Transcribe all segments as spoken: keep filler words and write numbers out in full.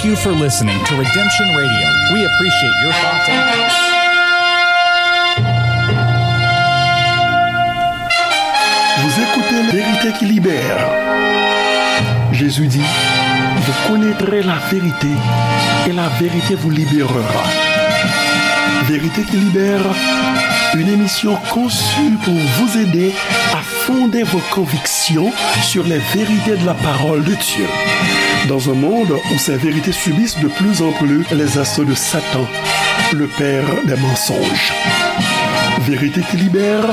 Thank you for listening to Redemption Radio. We appreciate your thoughts and Vous écoutez Vérité qui libère. Jésus dit, vous connaîtrez la vérité et la vérité vous libérera. Vérité qui libère, une émission conçue pour vous aider à fonder vos convictions sur les vérités de la parole de Dieu. Dans un monde où ces vérités subissent de plus en plus les assauts de Satan, le père des mensonges. Vérité qui libère,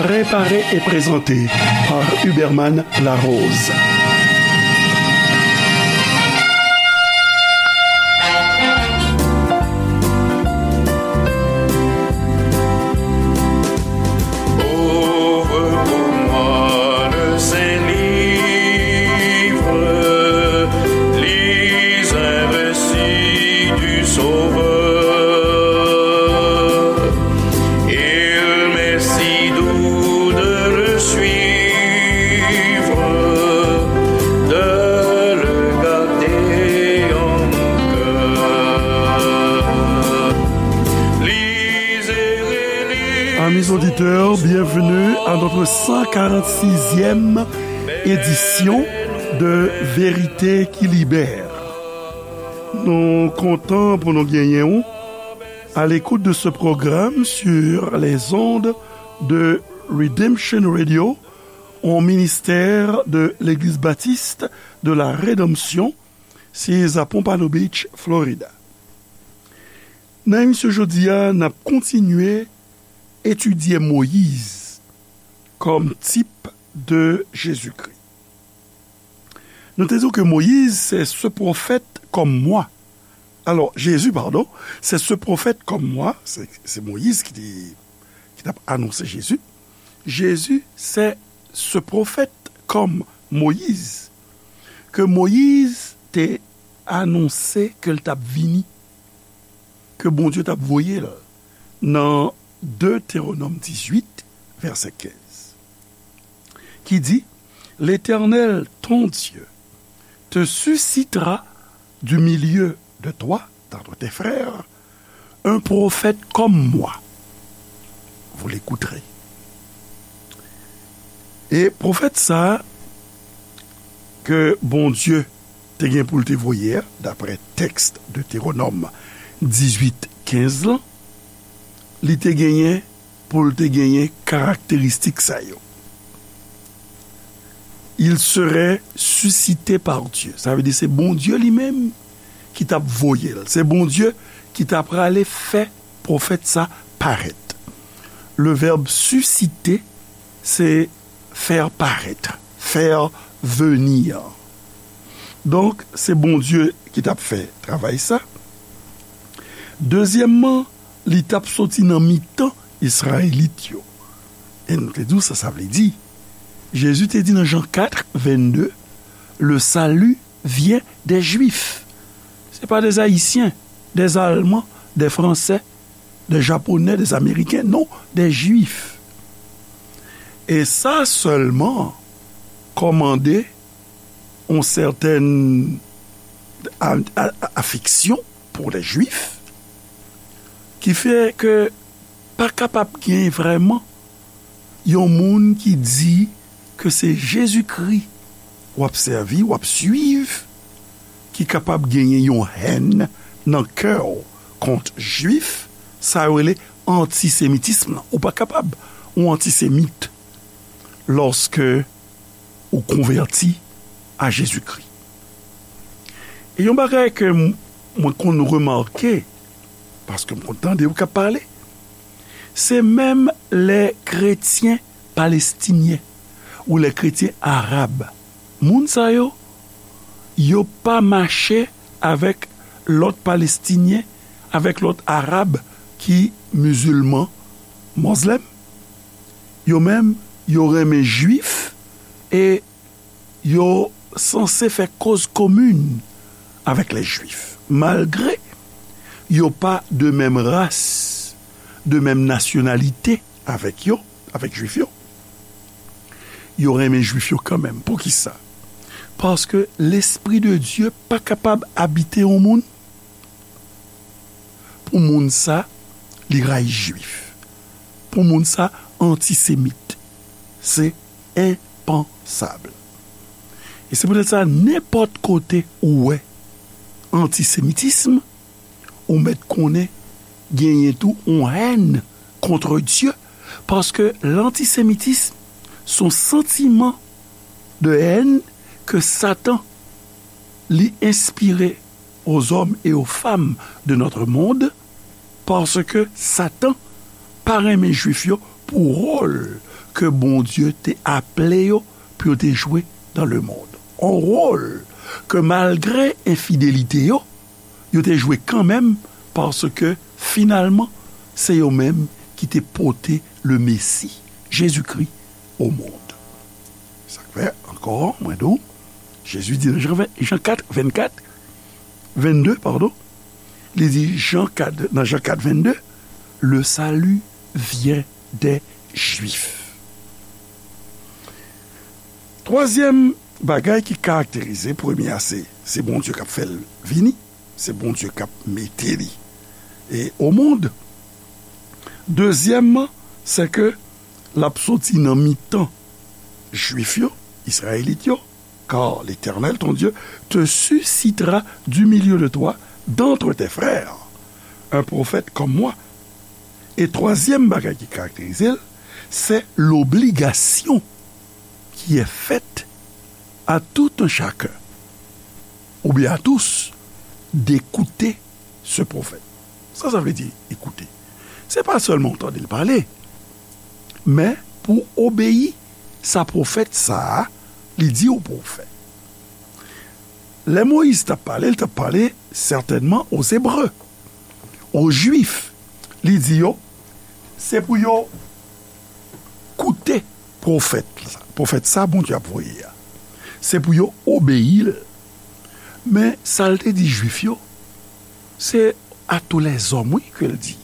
préparée et présentée par Huberman Larose. Ouvre pour moi le Saint-Livre, lis un récit du Sauveur. Il m'est si doux de le suivre, de le garder en mon cœur. Lisez et lisez. Amis auditeurs, bienvenue à notre cent quarante-sixième édition de Vérité qui libère. Nou kontan pou nou genyen w à l'écoute de ce programme sur les ondes de Redemption Radio, un ministère de l'Église Baptiste de la Rédemption, sise a Pompano Beach, Florida. Nan emisyon jodi a, n ap kontinye etidye Moyiz kòm tip de Jezikri. Nou te di w ke Moyiz, c'est ce prophète comme moi. Alors, Jésus, pardon, c'est ce prophète comme moi, se, se Moyiz ki te, ki t ap anonse Jezi. Jésus, c'est ce prophète comme Moïse, ke Moyiz te anonse ke l t ap vini, ke Bondye t ap voye l nan Deutéronome dix-huit, verset quinze, ki di, L'Éternel, ton Dieu, te suscitera du milieu de toi, d'entre tes frères, un prophète comme moi. Vous l'écouterez. E pwofèt sa a ke Bondye te gen pou l te voye a, daprè tèks Detewonòm dizuit kenz lan, li te genyen pou l te genyen karakteristik sa yo. Il serait suscité par Dieu. Sa vle di se Bondye li menm ki t ap voye l. Se Bondye ki ta prale fè pwofèt sa parèt. Le verbe susciter, c'est faire paraître, faire venir. Donk, se Bondye ki t ap fè travay sa. Dezyèmman, li t ap soti nan mitan Izrayelit yo. E nou te di w sa sa vle di. Jezi te di nan Jan kat vennde, le salut vient des Juifs. Se pa des Haïtiens, des Allemands, des Français, des Japonais, des Américains, non, des Juifs. E sa sèlman kòmande yon sètèn a, a, a, afeksyon pou lè Jwif, ki fè ke pa kapab gen vrèman yon moun ki di ke se Jezikri w ap sèvi, w ap swiv, ki kapab genyen yon hèn nan kè w kont Jwif, sa yo rele antisemitism lan. Ou pa kapab yon antisemit lòske ou konvèti a Jezikri. E yon bagay ke m, mwen konn remake, paske m konn tande yo k ap pale, se menm lè kretyen palestinyen ou lè kretyen arab. Moun sa yo, yo pa mache avèk lòt palestinyen, avèk lòt arab ki mizilman, mozlèm. Yo menm, yo renmen jwif e yo sanse fè koz komin avèk lè jwif, malgre yo pa de menm ras, de menm nasyonalite avèk yo, avèk jwif yo. Yo renmen jwif yo kanmenm. Poukisa? Paske Lespri de Dye pa kapab abite yon moun, pou moun sa, li rayi Jwif. Pou moun sa, antisemit. Se enpansab. E se poutèt sa, nenpòt kote ou wè antisemitism, ou mèt konnen genyen tou yon hèn kont Dye, paske lantisemitism se yon santiman de hèn ke Satan li enspire aux hommes et aux femmes de notre monde, paske Satan pa renmen Jwif yo pou wòl ke Bondye te aple yo pou yo te jwe dans le monde. On wòl ke malgre enfidelite yo, yo te jwe kanmenm, paske finalman, se yo menm ki te pote le Mesi, Jezikri, au monde. Sa k fè, ankò, mwen di w, Jezi di nan Jan ven, Jan kat, vennkat, vennde, padon, li di Jan kat, nan Jan kat, vennde, le salut vient des Juifs. Twazyèm bagay ki karakterize, premye a, se, se Bondye k ap fè l vini, se Bondye k ap mete li e au monde. Dezyèmman, se ke l ap soti nan mitan Jwif yo, Izrayelit yo, car l'Éternel, ton Dieu, te suscitera du milieu de toi, d'entre tes frères, un prophète comme moi. E twazyèm bagay ki karakterize l, se l'obligation qui est faite à tout un chacun, ou bien à tous, d'écouter ce prophète. Sa sa vle di, ekoute? Se pa sèlman w tande l pale, men pou w obeyi sa pwofèt sa a, li di w pou w fè. Lè Moyiz t ap pale, l t ap pale sètènman aux Hébreux, aux Juifs. Li di yo, se pou yo koute pwofèt la, pwofèt sa Bondye ap voye a. Se pou yo obeyi l. Men sa l te di Jwif yo, se à tous les hommes, wi, ke l di.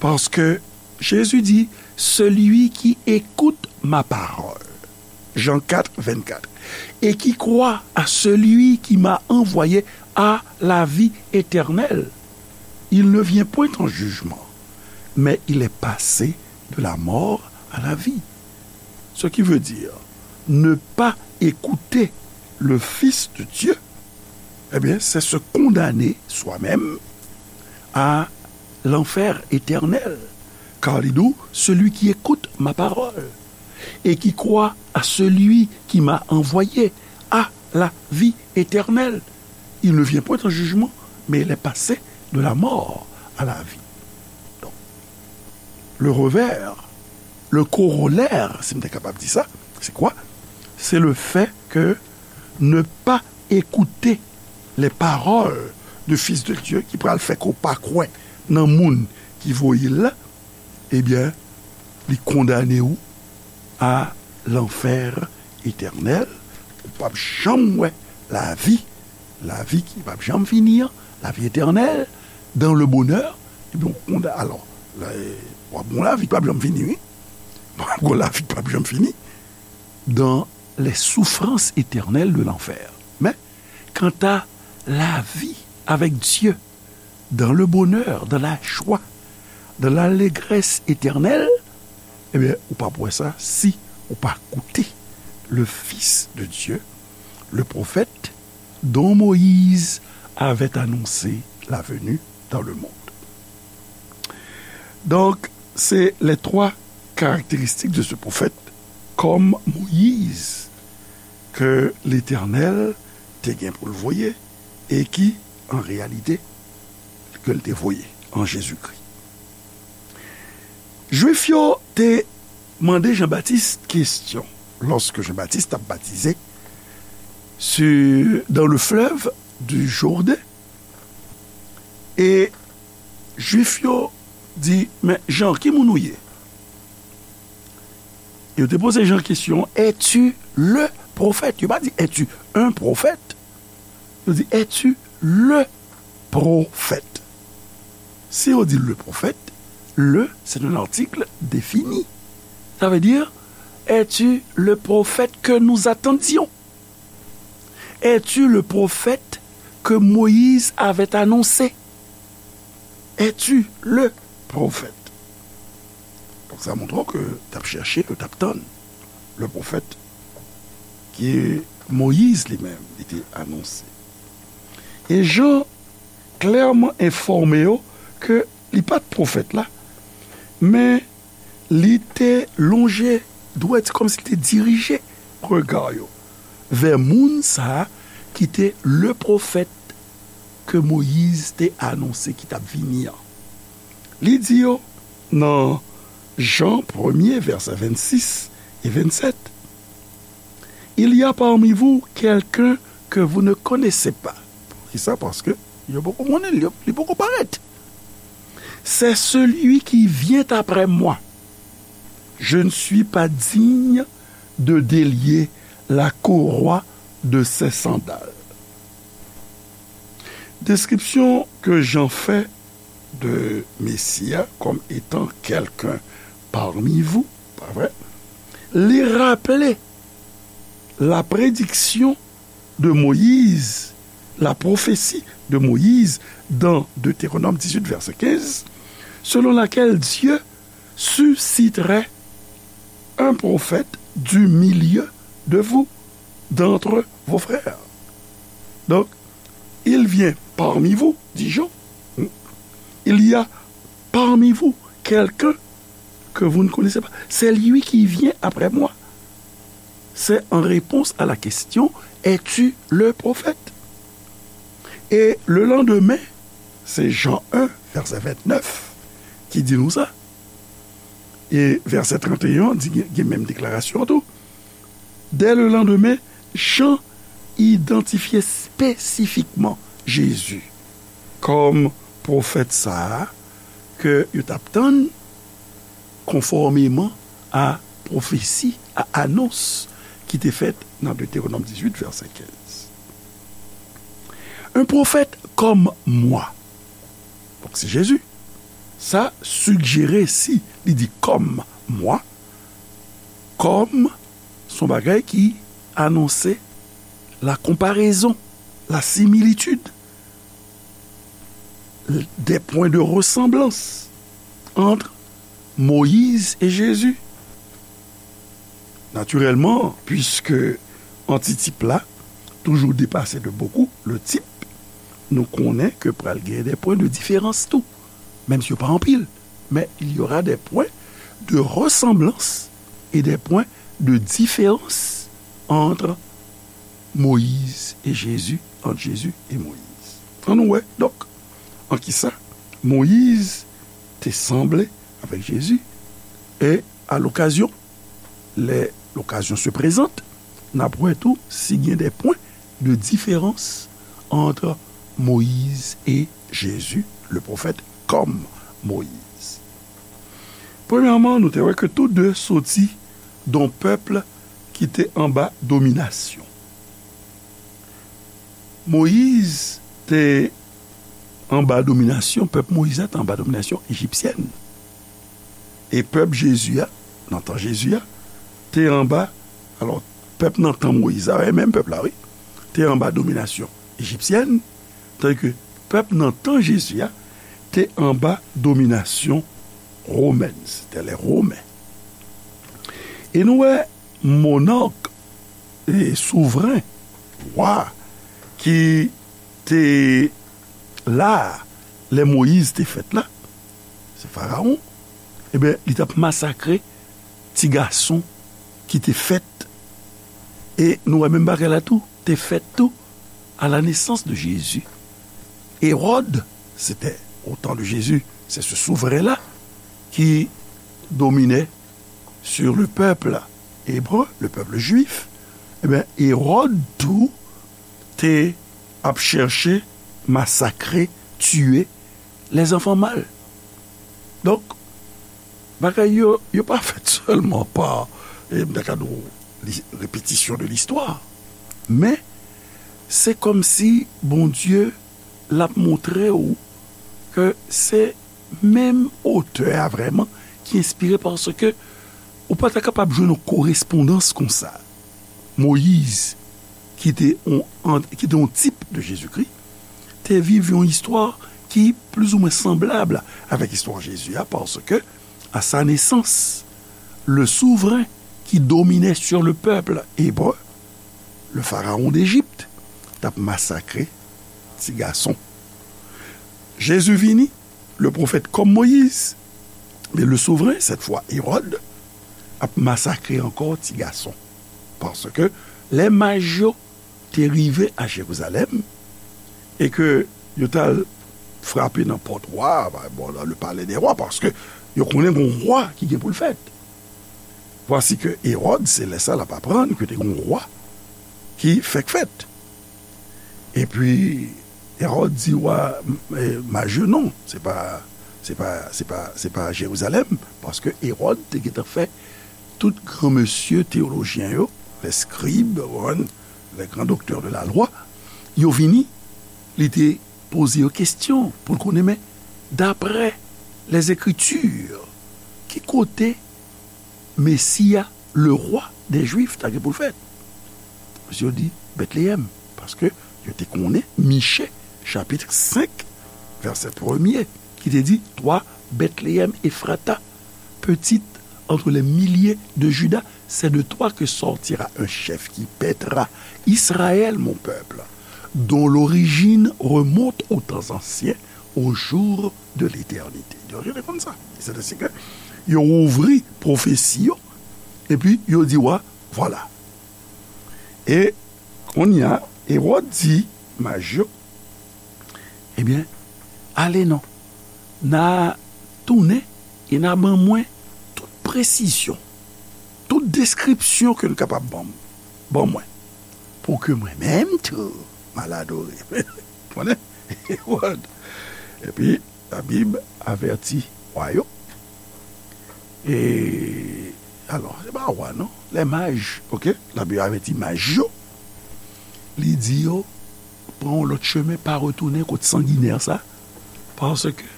Paske Jezi di, celui qui écoute ma parole, Jan kat, vennkat, et qui croit à celui qui m'a envoyé a la vie éternelle. Il ne vient point en jugement, mais il est passé de la mort à la vie. Ce qui veut dire, ne pas écouter le Fils de Dieu, eh bien, c'est se condamner soi-même à l'enfer éternel. Car il dit, celui qui écoute ma parole et qui croit à celui qui m'a envoyé a la vie éternelle. Il ne vient point en jugement, mais il est passé de la mort à la vie. Donc, le revers, le corollaire, si m te kapab di sa, c'est quoi? C'est le fait que ne pas écouter les paroles du Fils de Dieu, ki pral fè ke w pa kwè nan moun ki voye l la, ebyen, li kondane w a lanfè etènèl. Ou p ap janm wè lavi, lavi ki p ap janm fini an, lavi etènèl, dans le bonheur, ebyen, ou konda-, alò, w ap gon lavi ki p ap janm fini, wi. W ap gon lavi ki p ap janm fini, dans les souffrances éternelles de l'enfer. Mais, quant à la vie avec Dieu, dans le bonheur, dans la joie, dans l'allégresse éternelle, ebyen, ou p ap wè sa si ou pa koute le Fils de Dieu, le prophète dont Moïse avait annoncé la venue dans le monde. Donc, c'est les trois caractéristiques de ce prophète, comme Moïse, ke Letènèl te gen pou l voye e ki, an reyalite, ke l te voye an Jezikri. Jwif yo te mande Jan Batis kesyon, lòske Jan Batis t ap batize sur, dans le fleuve du Jourdain, e Jwif yo di, "Men Jan, ki moun ou ye?" Yo te poze Jan kesyon, "Es-tu le prophète?" Yo pa di, "Es-tu un prophète?" Yo di, "Es-tu le prophète?" Si yo di le prophète, le, c'est un article défini. Ça veut dire, "Es-tu le prophète que nous attendions?" Es-tu le prophète que Moïse avait annoncé? Es-tu le prophète? Donk, sa montre ke t ap chèche, ke t ap tann le pwofèt ke Moyiz li menm, li te anonse. E Jan klèman enfòme yo ke li pa t pwofèt la, men li te lonje dwèt, se kòmsi li te dirije rega yo vè moun sa a ki te le pwofèt ke Moyiz te anonse ki t ap vini an. Li di yo nan Jan premye, vèsè vennsis e vennsèt, Il y a parmi vous quelqu'un que vous ne connaissez pas. Poukisa? Paske yo poko konnen l, yo, li poko parèt. C'est celui qui vient après moi. Je ne suis pas digne de délier la courroie de ses sandales. Deskripsyon ke Jan fè de Mesi a comme étant quelqu'un parmi vous, pa vre? Li raple la prédiction de Moïse, la prophétie de Moïse dans Deutéronome dix-huit, verset quinze, selon laquelle Dieu susciterait un prophète du milieu de vous, d'entre vos frères. Donc, il vient parmi vous, dit Jean. Il y a parmi vous quelqu'un que vous ne connaissez pas. C'est lui qui vient après moi. C'est en réponse à la question, es-tu le prophète? Et le lendemain, c'est Jean un, verset vingt-neuf, qui dit nous ça. E vèsè trannteyen an di, gen, gen menm deklarasyon an tou. Dès le lendemain, Jean identifiait spécifiquement Jésus comme prophète sa a ke yo t ap tann konfòmeman a pwofesi, a anons ki te fèt nan Deutéronome dix-huit, verset quinze. Un prophète comme moi. Donk, se Jezi. Sa sigjere si li di comme moi, comme se yon bagay ki anonse la comparaison, la similitude, des points de ressemblance entre Moïse et Jésus. Naturellement, puisque antitip la toujours dépassé de beaucoup le type, nou konnen ke pral gen des points de différence tou. Menm si yo pa anpil, mais il y aura des points de ressemblance et des points de différence entre Moïse et Jésus, entre Jésus et Moïse. Ann nou wè, donk, an kisa Moyiz te sanble avèk Jezi, e a lokazyon, lè lokazyon se prezante, n ap wè tou si gen des points de différence entre Moïse et Jésus, le prophète comme Moïse. Premyèman, nou te wè ke tou de soti d on pèp ki te anba dominasyon. Moyiz te anba dominasyon, pèp Moyiz la te anba dominasyon ejipsyèn. E pèp Jezi a, nan tan Jezi a, te anba, alò, pèp nan tan Moyiz la, e menm pèp la, wi, te anba dominasyon ejipsyèn, tandike pèp nan tan Jezi a te anba dominasyon womèn, c'était les Romains. E nou wè monòk, e souvren, wa, ki te la a lè Moyiz te fèt la, se Farawon, ebyen, li t ap masakre ti gason ki te fèt. E nou wè menm bagay la tou, te fèt tou à la naissance de Jésus. Hérode, c'était au temps de Jésus, c'est ce souverain-là qui dominait sur le peuple hébreu, le peuple juif. Ebyen, Hérode tou te ap chèche masakre, tiye les enfants mâles. Donk, bagay yo, yo pa fèt sèlman pa, e, m ta ka di w, li, répétition de l'histoire. Men, se kòmsi Bondye l ap montre w ke se menm otè a vrèman ki enspire, paske ou pa ta kapab jwenn yon korespondans konsa. Moyiz, ki te yon, ki te yon tip de Jezikri, te viv yon istwa ki plizoumwen sanblab avèk istwa Jezi a, paske à sa naissance, le souvren ki dominait sur le peuple hébreu, le pharaon d'Égypte, t ap masakre ti gason. Jezi vini, le pwofèt kòm Moyiz, men le souvren, cette fois Hérode, ap masakre ankò ti gason. Paske lè maj yo te rive a Jerizalèm e ke yo t al frape nan pòt wa, bon, dans le palais des rois, paske yo konnen gon wa ki gen pou l fèt. Vwasi ke Ewòd, se lè sa l ap aprann ke te gon wa ki fèk fèt. Epi, Ewòd di wa, eh, maj yo non, se pa, se pa, se pa, se pa Jerizalèm, paske Ewòd te gentan fè tout granmesye teyolojyen yo, les scribes, ou konprann, les grands docteurs de la loi, yo vini, li te poze yo kesyon pou l konnen, men, daprè les Écritures, ki kote Mesi a, le roi des Juifs, ta gen pou l fèt? Misye di, Betleyèm, paske yo te konnen Miche, chapit senk, vèsè premye, ki te di, Toi, Bethléem Ephrata, petite entre les milliers de Juda, c'est de toi que sortira un chef qui paîtra Israël, mon peuple, dont l'origine remonte aux temps anciens, aux jours de l'éternité. Yo rele konn sa. Se te si ke yo ouvri pwofesi yo, epi yo di wa, vwala. E kounye a, Ewòd di maj yo, ebyen, ale non, n a tounen e n a ban mwen tout presizyon, tout deskripsyon ke n kapab ban, ban mwen, pou ke mwen menm tou, m al adore. Konnen? Ewòd. Epi, Labib avèti wa yo. E, alò, se pa wa, non. Les mages, oke? Labib avèti maj yo. Li di yo, pran yon lòt chemen, pa retounen kot sanginè sa. Paske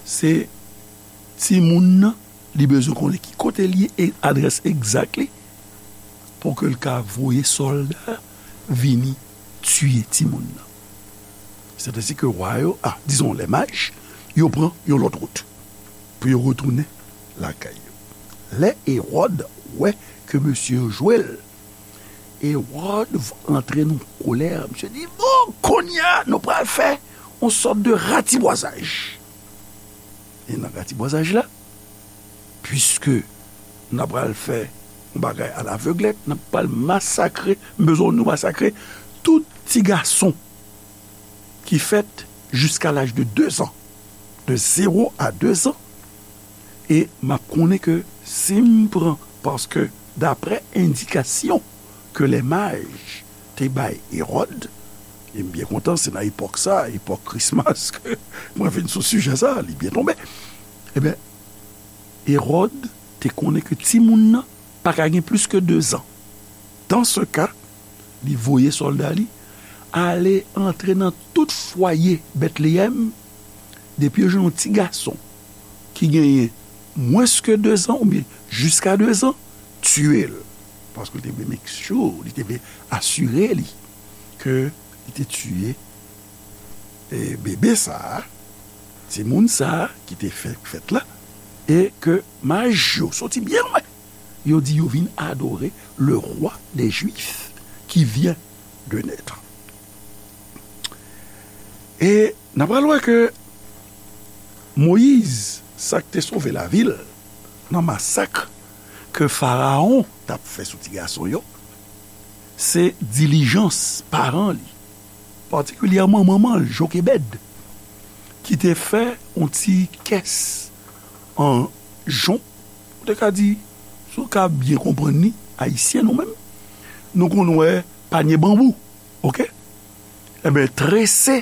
se timoun nan, li bezwen konnen ki kote l ye e adrès egzak li pou ke l ka voye sòlda vini tiye timoun nan. Se te si ke wa yo, a, dizon, les mages, yo pran yon lòt wout pou yo retounen lakay yo. Lè Ewòd wè ke mesye yo jwe l, Ewòd antre nan kolè, misye di, bon, kounye a, nou pral fè yon sòt de ratibwazaj. E nan ratibwazaj la, piske n ap pral fè yon bagay a laveglèt, n ap pral masakre, m bezwen nou masakre tout ti gason ki fèt jiska laj de de zan, de zéro à deux ans, e m ap konnen ke si m pran, paske daprè endikasyon ke les mages te bay Ewòd, e m byen kontan, se nan epòk sa, epòk Christmas, ke mwen vin sou sijè sa, li byen tonbe. Ebyen, Ewòd te konnen ke timoun nan pa ka gen plis ke de zan. Dans ce cas, li voye sòlda li ale antre nan tout fwaye Betleyèm, depi yo jwenn yon ti gason ki genyen mwens ke de zan oubyen jiska de zan, tiye l. Paske li te vle make sure, li te vle asire li ke li te tiye e bebe sa a, timoun sa a ki te fèk fèt la, e ke maj yo soti byen lwen, yo di yo vin adore le roi des Juifs qui vient de naître. E n ap pral wè ke Moyiz, sa k te sove lavi l nan masak ke Farawon t ap fè sou ti gason yo, se dilijans paran li, patikilyèman manman l, Jokebèd, ki te fè yon ti kès an jon, ou te ka di, si w ka byen konprann li, ayisyen nou menm, nou konn wè panye banbou, oke? Enben, trese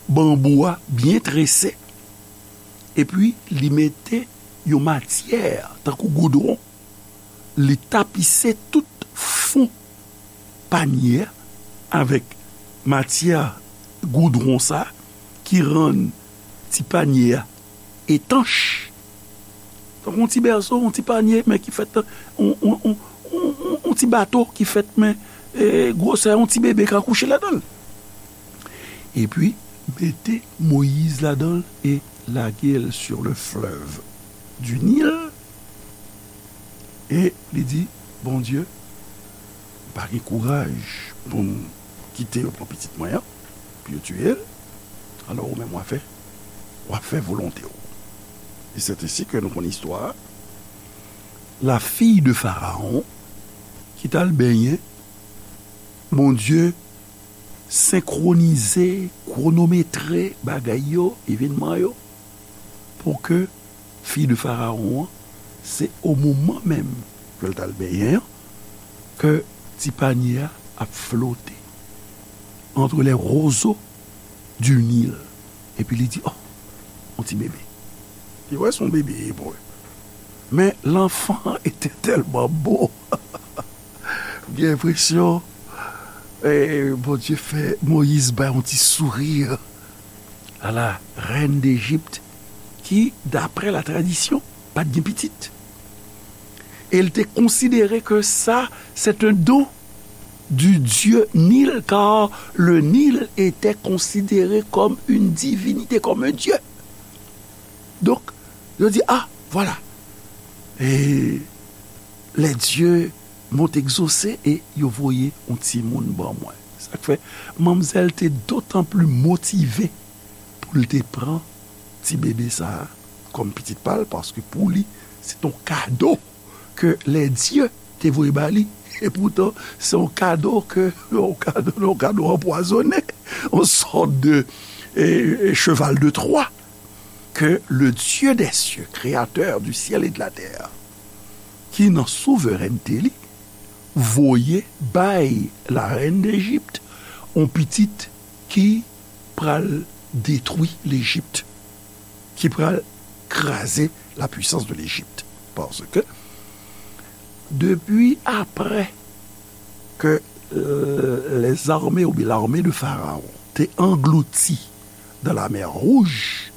banbou a, byen trese, epi li mete yon matyè tankou goudwon, li tapise tout fon panye a avèk matyè goudwon sa a ki rann ti panye a etanch. Tankou yon ti bèso, yon ti panye, men ki fèt, yon, yon, yon, yon, yon, yon ti bato ki fèt, men e, gwosè yon ti bebe ka kouche ladan l. Epi, mete Moyiz ladan l e lage l sur le fleuve du Nil. E li di, Bondye, m pa gen kouraj pou m kite yo pran pitit mwen an, pou yo tiye l. Alò, ou menm, w ap fè, w ap fè volonte w. E c'est ainsi que nou konn istwa a. La fille de Pharaon, ki t al benyen, Bondye senkwonize, kwonometre bagay yo, evènman yo, pou ke fi de Farawon an, se o moman menm ke l t al benyen an, ke ti panye a ap flote entre les roseaux du Nil. Epi li di, oh, yon ti bebe. Li wè se yon bebe ebre. Men l'enfant était tellement beau. M gen enpresyon, eh, Bondye fè Moyiz bay yon ti souri a la rèn Dejip, ki, daprè la tradisyon, pa t gen pitit. E l te konsidere ke sa, c'est un don du dieu Nil, car le Nil était considéré comme une divinité, comme un dieu. Donk, yo di, ah, voilà. E les dieux m'ont exaucé, e yo voye yon timoun ban mwen. Sa k fè, manmzèl te dotan pli motive pou l te pran ti bebe sa a kòm pitit pa l, paske pou li, se t on kado ke les dieux te voye ba li. E poutan, se yon kado ke, yon kado, yon kado anpwazonnen, yon sòt de, eh, cheval de Troie, ke le Dieu des cieux, créateur du ciel et de la terre, ki nan souverènte li, voye bay la rèn Dejip yon pitit ki pral detwi Lejip, ki pral kraze la puissance de l'Égypte. Paske depi aprè ke, euh, les armées oubyen l'armée de Pharaon te anglouti dans la mer Rouge,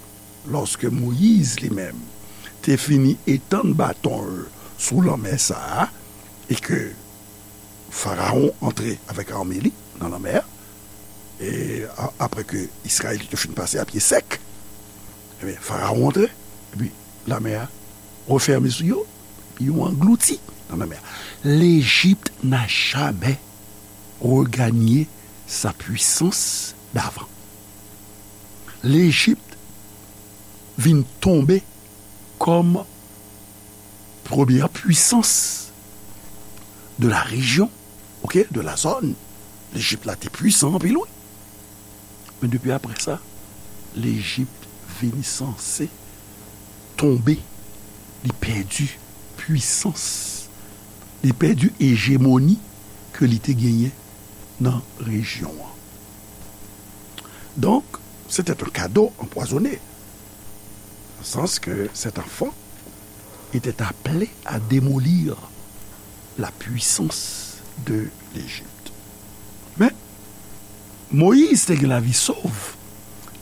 lòske Moyiz li menm te fini etann baton l sou lanmè sa a, e ke Farawon antre avèk ame li nan lanmè a, e a-, apre ke Izrayelit yo fin pase a pye sèk, ebyen, Farawon antre, epi lanmè a refèmen sou yo, epi yo anglouti nan lanmè a. L'Égypte n'a jamais regagné sa puissance d'avant. Lejip vin tonbe kòm premyè pwisans de la rejyon, oke, de la zòn. Lejip la te pwisan anpil, wi. Men depi apre sa, Lejip vin sanse tonbe, li pèdi pwisans, li pèdi ejemoni ke li te genyen nan rejyon an. Donc, c'était un cadeau empoisonné, dans le sens que cet enfant était appelé à démolir la puissance de l'Égypte. Men, Moyiz te gen lavi sov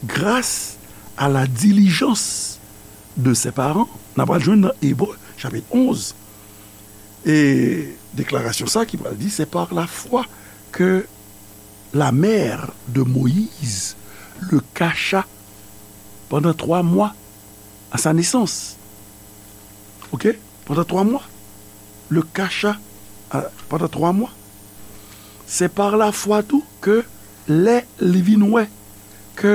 gras a la dilijans de ses parents. N a pral jwenn nan Ebre, chapit onz, e deklarasyon sa ki pral di, c'est par la foi que la mère de Moïse le cacha pendant trois mois à sa naissance. Ok? Pendant trois mois. Le cacha, euh, pendant trois mois. Se pa lafwa tou ke lè li vin wè ke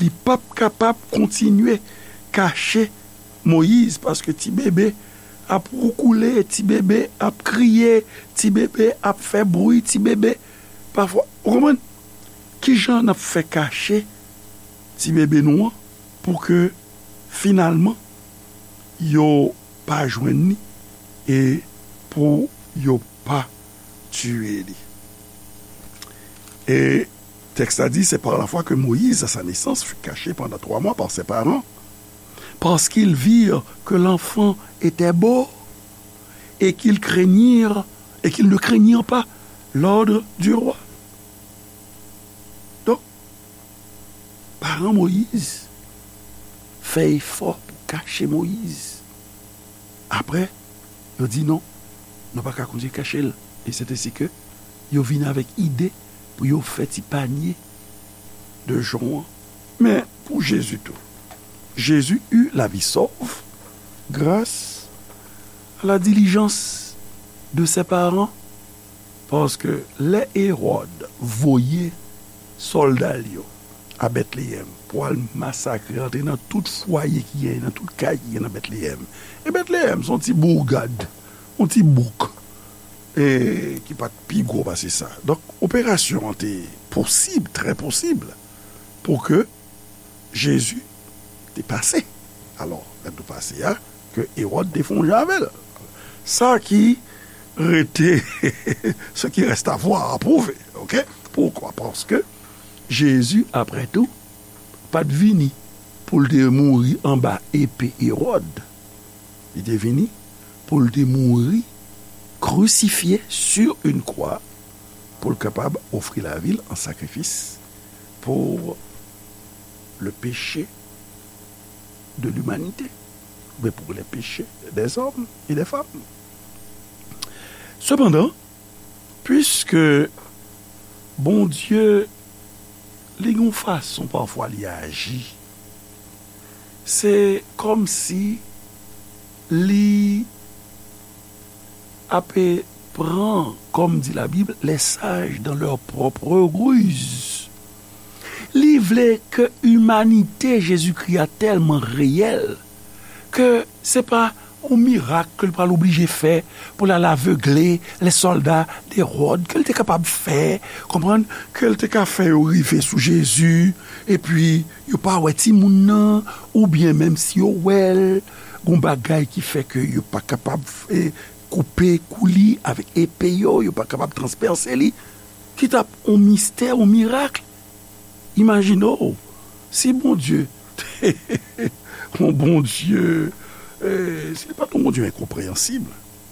li p ap kapab kontinye kache Moyiz, paske ti bebe ap woukoule, ti bebe ap kriye, ti bebe ap fè bri, ti bebe pafwa, ou konprann? Kijan n ap fè kache ti bebe nou an pou ke finalman yo pa jwenn li e pou yo pa tiye li? E tèks la di, c'est par la foi que Moïse, à sa naissance, fut caché pendant trois mois par ses parents, parce qu'ils virent que l'enfant était beau et qu'ils craignirent, et qu'ils ne craignirent pas l'ordre du roi. Donk, paran Moyiz fè efò pou kache Moyiz. Apre, yo di non, nou pa ka kontinye kache l. E se te si ke Yo vin avèk ide pou yo fè ti panye de jon an. Men pou Jezi tou, Jésus eut la vie sauve grâce à la diligence de ses parents, paske lè Ewòd voye sòlda l yo a Betleyèm pou al masakre, antre nan tout fwaye ki genyen, nan tout kay ki genyen nan Betleyèm. E Betleyèm se yon ti bourgade, yon ti bouk, e ki pa t pi gwo pase sa. Donk, operasyon an te posib, trè posib, pou ke Jezi te pase. Alò, lè nou pase a, ke Ewòd te fè yon jan avè l. Sa ki rete, ce qui reste à voir, à prouver, oke? Poukwa? Paske Jezi, apre tou, pa t vini pou l te mouri anba epe Ewòd. Li te vini pou l te mouri crucifié sur une croix, pou l kapab ofri lavi l an sakrifis pour le péché de l'humanité, oubyen pour les péchés des hommes et des femmes. Sepandan, piske Bondye, li gen yon fason pafwa li aji, se kòmsi li ape pran, comme dit la Bible, les sages dans leur propre ruse. Li vle ke imanite Jezikri a tèlman reyèl ke se pa yon mirak ke l pral oblije fè pou l al avegle lè sòlda de Ewòd, ke l te kapab fè, konprann, ke l te ka fè yo rive sou Jezi, epi yo pa wè timoun nan, oubyen menm si yo wè l, gon bagay ki fè ke yo pa kapab, e, koupe kou li avèk epe yo, yo pa kapab transpèse li, ki t ap yon mistè, yon mirak. Imajine w, si Bondye te yon Bondye, e, si li pa t yon Bondye enkonpreyansib,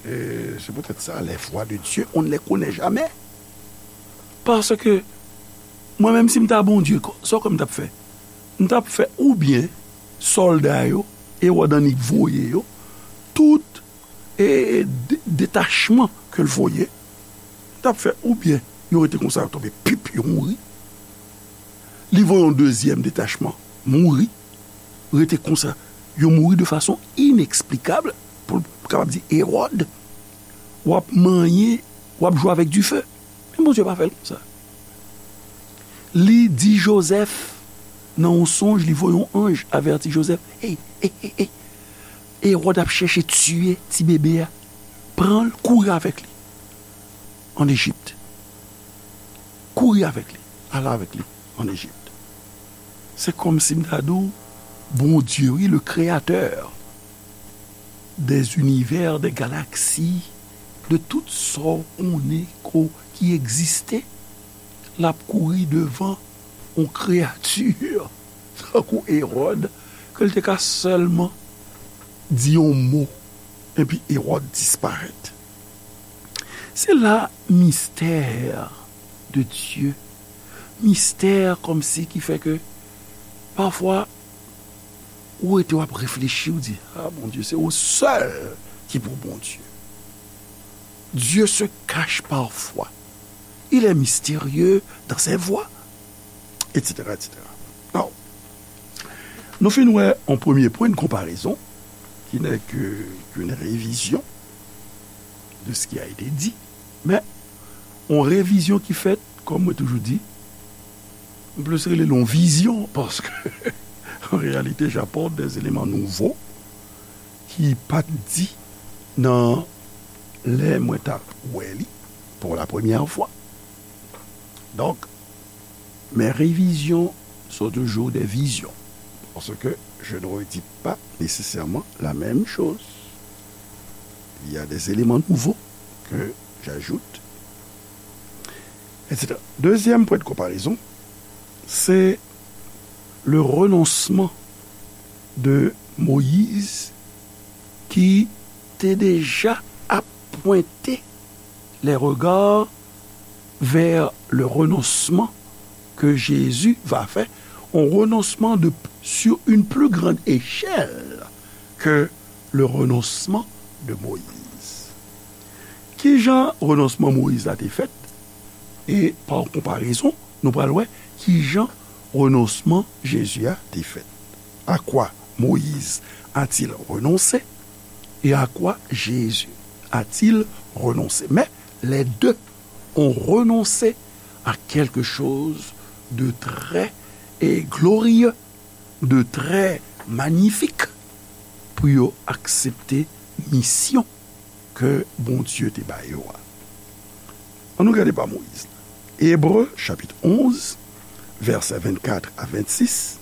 e, se poutèt sa, les voies de Dieu, on ne les connaît jamais. Paske, mwen menm, si m ta Bondye, sa w kwè m t ap fè? M t ap fè oubyen sòlda yo, Ewòd annik voye yo, tout, e, de-, detachman ke l voye, t ap fè oubyen yo rete konsa, yo tonbe, pip, yo mouri. Li voye yon dezyèm detachman, mouri, rete konsa, yo mouri de fason ineksplikab, pou l kapab di Ewòd, w ap manyen, w ap jwe avèk dife. Men Bondye pa fè l konsa. Li di Jozèf, nan yon sonj, li voye yon anj avèti Jozèf, ey, ey, ey, ey, Ewòd ap chèche tiye ti bebe a. Pran l, kouri avèk li ann Ejip. Kouri avèk li. Al avèk li ann Ejip. Se kòmsi m ta di w, Bondye, wi, le créateur des univers, des galaxies, de tout sa w konnen ko ki egziste, l ap kouri devan yon kreyati tankou Ewòd, ke l te ka sèlman di yon mo, epi Ewòd disparèt. Se la mystère de Dieu, mistè kòmsi ki fè ke pafwa ou rete w ap reflechi, ou di, a, Bondye, se ou sèl ki pou Bondye. Dieu se cache parfois. Il est mystérieux dans ses voies, et cetera, et cetera. Now, nou fin wè yon premye pwen de konparezon, ki n'est que, qu'une révision de ce qui a été dit, men yon revizyon ki fèt, kòm mwen toujou di, m plis rele l yon vizyon, paske, en réalité, j'apporte des éléments nouveaux ki pa t di nan lè mwen t ap wè li pour la première fois. Donc, mes révisions sont toujours des visions, parce que je ne redis pas nécessairement la même chose. Il y a des éléments nouveaux que j'ajoute, et cetera. Deuxième point de comparaison, c'est le renoncement de Moïse qui était déjà appointé les regards vers le renoncement que Jésus va faire, un renoncement de, sur une plus grande échelle que le renoncement de Moïse. Kijan renonsman Moyiz la te fèt? E pa konparezon, nou pral wè kijan renonsman Jezi a te fèt. À quoi Moïse a-t-il renoncé? Et à quoi Jésus a-t-il renoncé? Mais les deux ont renoncé à quelque chose de très et glorieux, de très magnifique, pou yo aksepte misyon ke Bondye te ba yo a. Ann nou gade pa Moyiz. Ebre, chapit onz, vèsè vennkat a vennsis.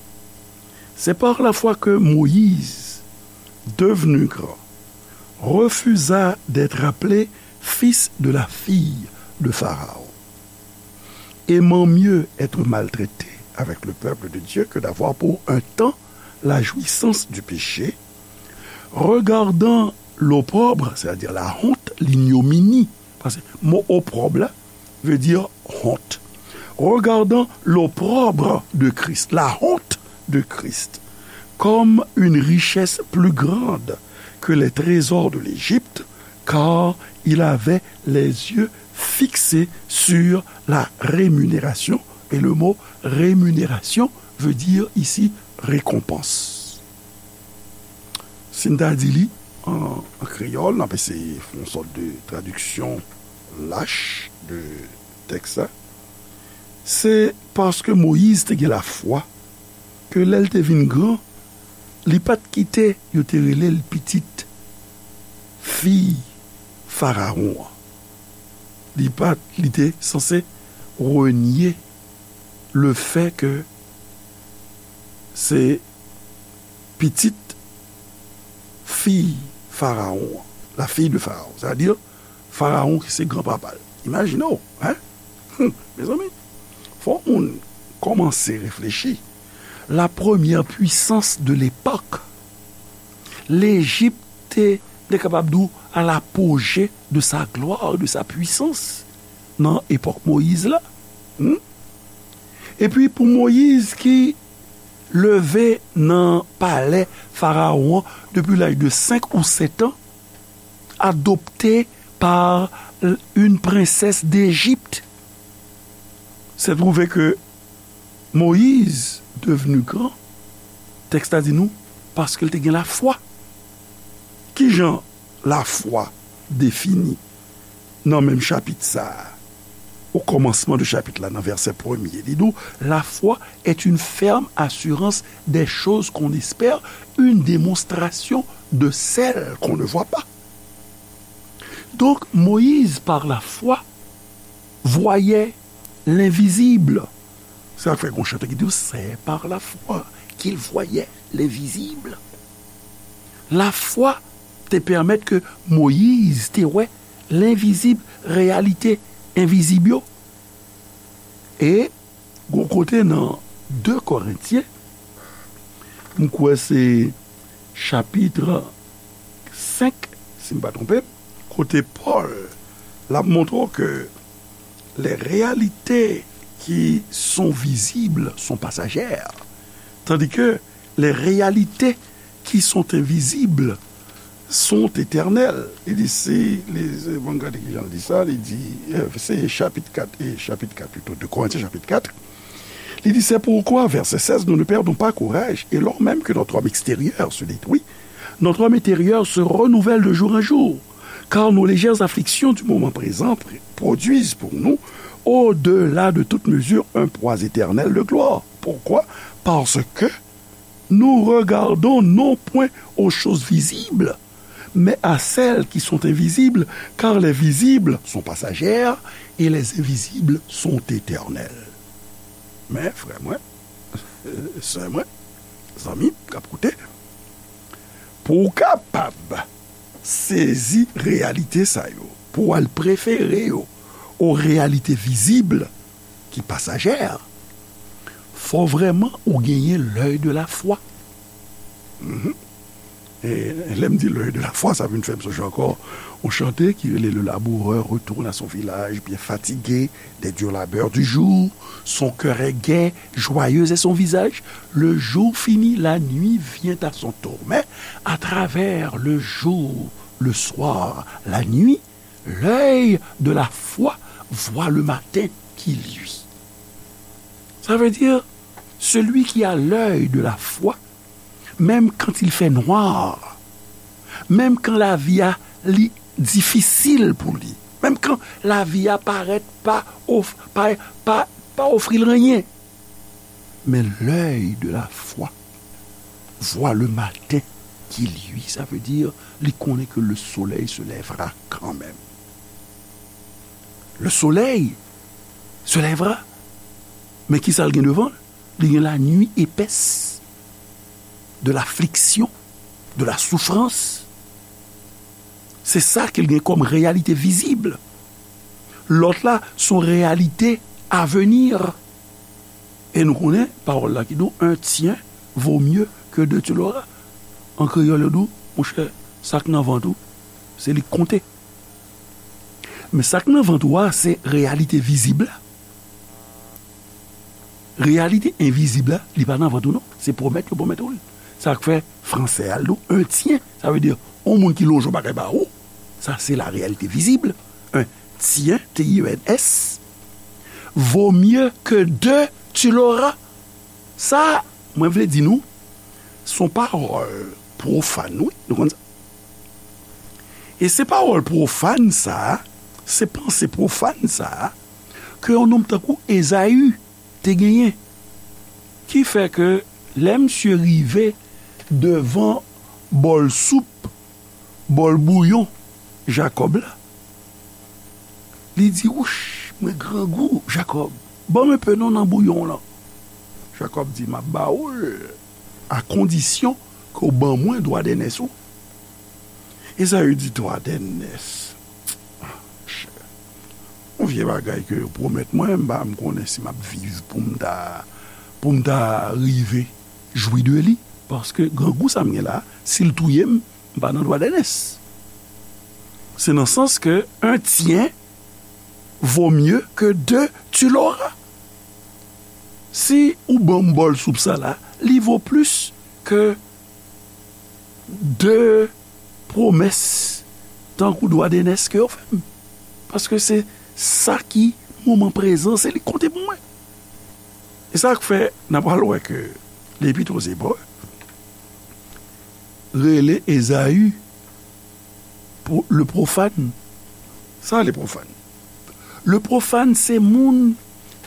C'est par la foi que Moïse, devenu grand, refusa d'être appelé fils de la fille de Pharaon, aimant mieux être maltraité avec le peuple de Dieu que d'avoir pour un temps la jouissance du péché, regardant l'opprobre, c'est-à-dire la honte, l'ignominie, paske mo opprobre la vle di honte. Regardant l'opprobre de Christ, la honte de Christ, comme une richesse plus grande que les trésors de l'Égypte, car il avait les yeux fixés sur la rémunération. Et le mot rémunération veut dire ici récompense. Si n ta di li an, an kreyòl, n ap eseye fè yon sòt de tradiksyon lach de tèks la. Se paske Moyiz te gen lafwa ke lè l te vin gran, li pa t kite yo te rele l pitit fi Farawon an. Li pa t, li te sanse renye le fè ke se pitit fi Farawon an, la fille de Pharaon, sètadi Farawon ki se granpapa l. Imajine w, hein? Hum, mezanmi, fò moun kòmanse reflechi. La première puissance de l'époque, Lejip te, te kapab di w, à l'apogée de sa gloire, de sa puissance, nan epòk Moyiz la. Hmm? Epi pou Moyiz ki leve nan palè Farawon an depi laj de senk ou sèt an, adopté par une princesse d'Égypte, se twouve ke Moyiz devni gran, tèks la di nou, paske l te gen lafwa. Kijan lafwa defini nan menm chapit sa a? Au commencement de chapitre là, dans verset premier, li di, la foi est une ferme assurance des choses qu'on espère, une démonstration de celles qu'on ne voit pas. Donc, Moïse, par la foi, voyait l'invisible. Sa fè gon chante ki di, c'est par la foi qu'il voyait l'invisible. Lafwa te pèmèt ke Moyiz te wè lenvizib, reyalite envizib yo. E gon kote nan de Korentyen, m kwè se chapit senk, si m pa twonpe m, kote Pòl l ap montre w ke les réalités qui sont visibles sont passagères, tandis que les réalités qui sont invisibles sont éternelles. Li di, si, li, bon, gade ki jan l di sa, li di, euh, se chapit kat, e chapit kat pito, de Korentyen chapit kat. Li di, c'est pourquoi, verset seize, nous ne perdons pas courage, et lors même que notre homme extérieur se détruit, notre homme intérieur se renouvelle de jour en jour, car nos légères afflictions du moment présent pr-, produisent pour nous, au-delà de toute mesure, un poids éternel de gloire. Pourquoi? Parce que nous regardons non point aux choses visibles, mais à celles qui sont invisibles, car les visibles sont passagères et les invisibles sont éternelles. Men, frè mwen, sè mwen, zanmi k ap koute, pou w kapab sezi reyalite sa yo, pou w al prefere yo o reyalite vizib ki pasajè, fò vrèman ou genyen l'œil de la foi. Mhm. E lè m di l'œil de la foi, sa vin fè m sonje ankò yon chante ki rele, le laboureur retourne à son village, bien fatigué des durs labeurs du jour. Son cœur est gai, joyeux est son visage. Le jour fini, la nuit vient à son tour. Mais à travers le jour, le soir, la nuit, l'œil de la foi voit le matin qui lui. Ça veut dire, celui qui a l'œil de la foi, même quand il fait noir, menm kan lavi a li difisil pou li, menm kan lavi a parèt pa, of, pa, pa, pa ofri l anyen, men l'œil de la foi voit le matin qui lui, ça veut dire, li konnen ke le soleil se lèvera quand même. Le soleil se lèvera. Men ki sa l gen devan l? Li gen la nuit épaisse, de l'affliction, de la souffrance. Se sa ke l gen kòm reyalite vizib. Lòt la, se yon reyalite avenir. E nou konnen pawòl la ki di w, un tien vaut mieux que deux tu l'auras. An kreyòl, yo di w, monchè, sa k nan vant ou, se li k konte. Men sa k nan vant ou a, se reyalite vizib la. Reyalite envizib la, li pa nan vant ou non. Se pwomèt yo pwomèt ou l. Sa k fè fransè a, l di w, un tien. Sa vle di, yon moun ki lonje yon bagay ba ou. Sa, se la reyalite vizib. Un tien, T I E N S, vaut mieux que deux tu l'auras. Sa, mwen vle di nou, se yon pawòl pwofàn, wi. Nou konn sa? E se pawòl pwofàn sa a, se panse pwofàn sa a, ke yon nonm tankou Ezayi te genyen, ki fè ke lè misye rive devan bòl soup, bòl bouyon Jakòb la, li di, wouch, mwen grangou, Jakòb, ban m enpe non nan bouyon w lan. Jakòb di, m ap ba ou l, a kondisyon ke w ban mwen dwa dènès ou. Ezayi di, dwa dènès. Ah, monchè. Yon vye bagay ke yo pwomèt mwen, m pa m konnen si m ap viv pou m ta, pou m ta rive jwi de li. Paske grangou sa m gen la, si l touye m, m pa nan dwa dènès. Se nan sans ke un tien vaut mieux que deux tu l'auras. Si ou ban m bòl soup sa la, li vo plis ke de pwomès tankou dwa dènès ke yo fè m. Paske se sa ki moman prezan, se li k konte pou mwen. E sa k fè n a pral wè ke Lepit o Zebre rele Ezayi pwo-, le pwofàn. Sa le pwofàn? Le pwofàn se moun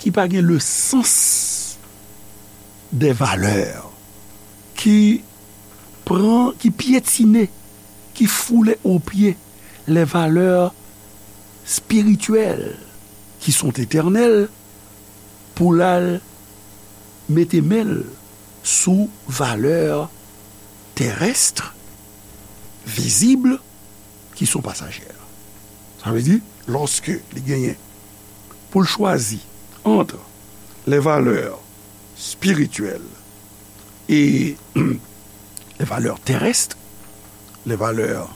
ki pa gen le sans des valeurs, ki pran, ki pyetine, ki foule aux pieds les valeurs spirituelles qui sont éternelles, pou l al mete men l sou valè terès, vizib, ki son pasajè. Sa vle di, lòske li genyen pou l chwazi entre les valeurs spirituelles et les valeurs terrestres, les valeurs